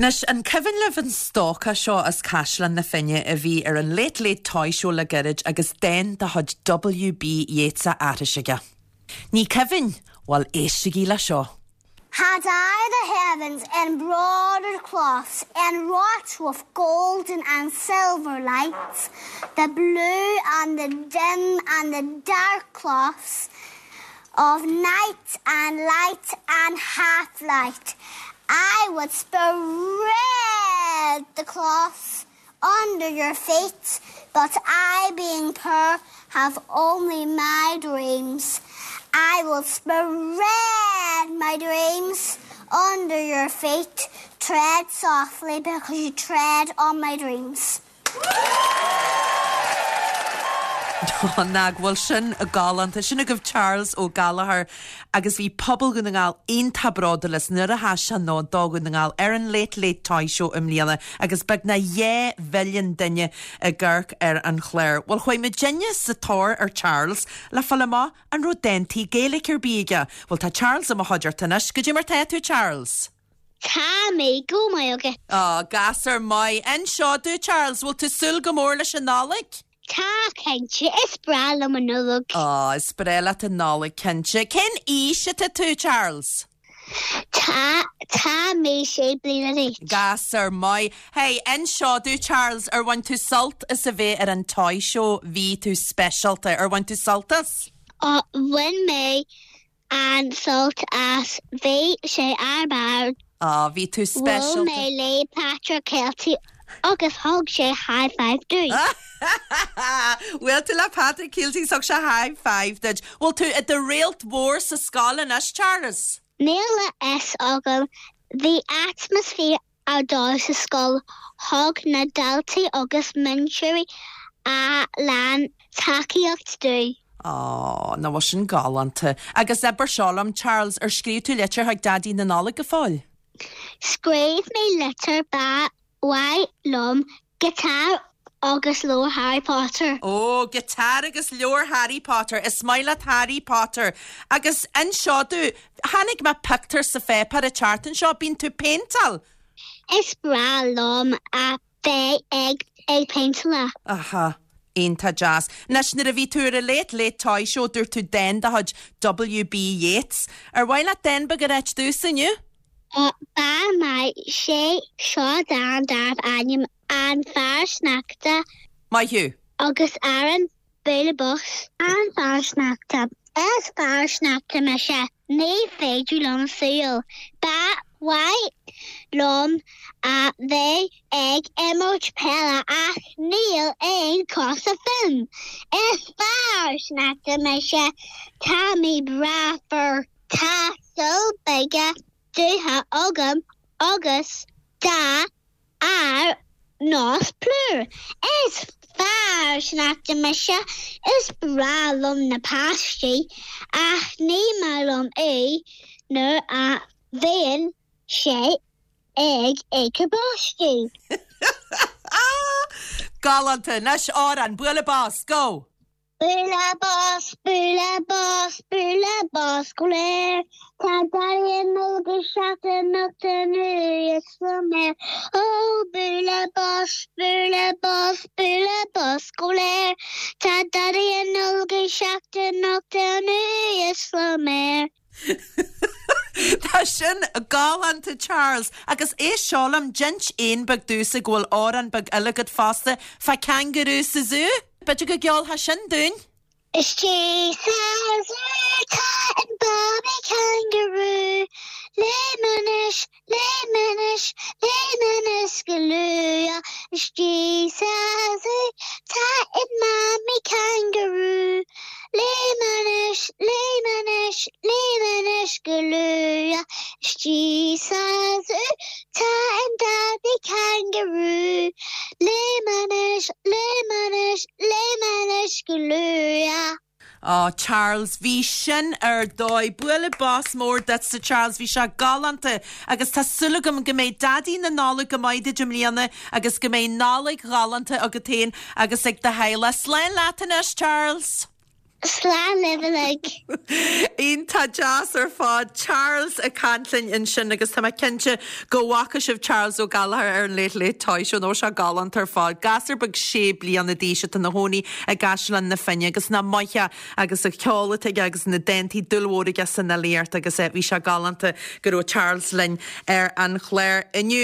Anois, an cuimhin libh an stócach seo as Caisleán na Finne a bhí ar an Late Late Toy Show le gairid agus dán de chuid W.B. Yeats á aithris aige? Ní cuimhin? Bhuel, éistigí le seo. Had I the heavens embroidered cloths Enwrought with golden and silver lights, The blue and the dim and the dark cloths Of night and light and half-light, I would spread the cloths under your feet, But I, being poor, have only my dreams. I will spread my dreams under your feet, Tread softly because you tread on my dreams. Nach bhfuil sin galánta. Sin agaibh Charles Ó Gallchóir agus bhí pobal Dhún na nGall iontach bródúil as nuair a sheas sé ann do Dhún na nGall ar an Late Late Toy Show i mbliana agus beagnach 2 mhilliún duine ag amharc ar an chlár. Bhuel chuaigh muidinne sa tóir ar Charles le fáil amach an raibh dántaí Gaeilge ar bith aige. Bhuel tá Charles i mo chuideachta anois. Goidé mar tá tú Charles? Tá mé go maith agat. Á, gasúr maith. Inis domh, Charles, bhfuil tú súil go mór leis an Nollaig? Tá, cinnte. Is breá liom an Nollaig. Á, is breá leat an Nollaig, cinnte. Cén aois atá tú, Charles? Tá, tá mé sé bliana d'aois. Gasúr maith. Hey, inis domh, Charles, ar bhain tú sult as a bheith ar an Toy Show? Bhí tú speisialta. Ar bhain tú sult as? Á, bhain mé an-sult as. Bhí sé ar barr. Á, bhí tú speisialta. Bhuail mé le Patrick Kielty agus thug sé high five dúinn. Bhuail tú le Patrick Kielty is thug sé high five duit. Bhfuil tú i do réalt mhór sa scoil anois, Charles? Níl a fhios agam. Bhí atmaisféar ar dóigh sa scoil, thug na daltaí agus múinteoirí a lán tacaíocht dúinn. Á, nach bhfuil sin galánta. Agus abair seo liom, Charles, ar scríobh tú litir chuig Daidí na Nollag go fóill? Scríobh mé litir, ba mhaith liom giotár agus leabhar Harry Potter. Ó, giotár agus leabhar Harry Potter. Is maith leat Harry Potter. Agus inis domh, chonaic mé pictiúr sa pháipéar an tseachtain seo, bíonn tú péinteáil? Is breá liom a bheith ag ag péinteáil. Aha. Iontach deas. Anois, nuair a bhí tú ar an Late Late Toy Show, dúirt tú dán de chuid W.B. Yeats. Ar mhaith leat dán beag a ráit domhsa inniu? Ba mhaith sé seo dán darbh ainm An Fear Sneachta. Maith thú. Agus amhrán Bualadh Bos. An Fear Sneachta. Is fear sneachta mise. Ní féidir liom siúl. Ba mhaith liom a bheith ag imirt peile ach níl aon chosa fúm. Is fear sneachta mise. Tá mé breá fuar. Tá súile beaga dubha agam agus dath ar nós plúr. Is fear sneachta mise. Is breá liom na páistí ach ní maith liom é nuair a bhíonn sé ag ithe báistí. Galánta! Anois amhrán, bualadh bos, go! Bualadh bos, bualadh bos, bualadh bos go léir. Tá Daidí na Nollag ag teacht anocht anuas sliméar. Ó, bualadh bos, bualadh bos, bualadh bos go léir. Tá Daidí na Nollag ag teacht anocht anuas sliméar. Tá sin galánta Charles. Agus éist seo liom, d'inis éan beag domhsa go bhfuil amhrán beag eile agat fosta fá cangarú sa zú. B'fhéidir go gceolfá sin dúinn? Istigh sa zú tá an babaí cangarú, Léim anuas, léim anuas, léim anuas go luath. Istigh sa zú tá an mamaí cangarú, Léim anuas, léim anuas, léim anuas go luath. Istigh sa zú tá an daidí cangarú. Léim anuas, léim anuas, léim anuas go luath. Á, Charles, bhí sin ar dóigh. Bualadh bos mór duitse, Charles, bhí sé galánta agus tá súil agam go mbeidh Daidí na Nollag go maith duit i mbliana agus go mbeidh Nollaig ghalánta agat féin agus ag do theaghlach. Slán leat anois, Charles! Slán libh uilig. Iontach deas ar fad. Charles ag caint linn ansin agus tá mé cinnte go bhfaca sibh Charles Ó Gallchóir ar an Late Late Toy Show nó sé galánta ar fad. Gasúr beag sé bliana d'aois atá ina chónaí i gCaisleán na Finne agus nach maith é agus an ceol atá aige agus na dántaí dúil mhór aige san fhilíocht agus bhí sé galánta go raibh Charles linn ar an chlár inniu.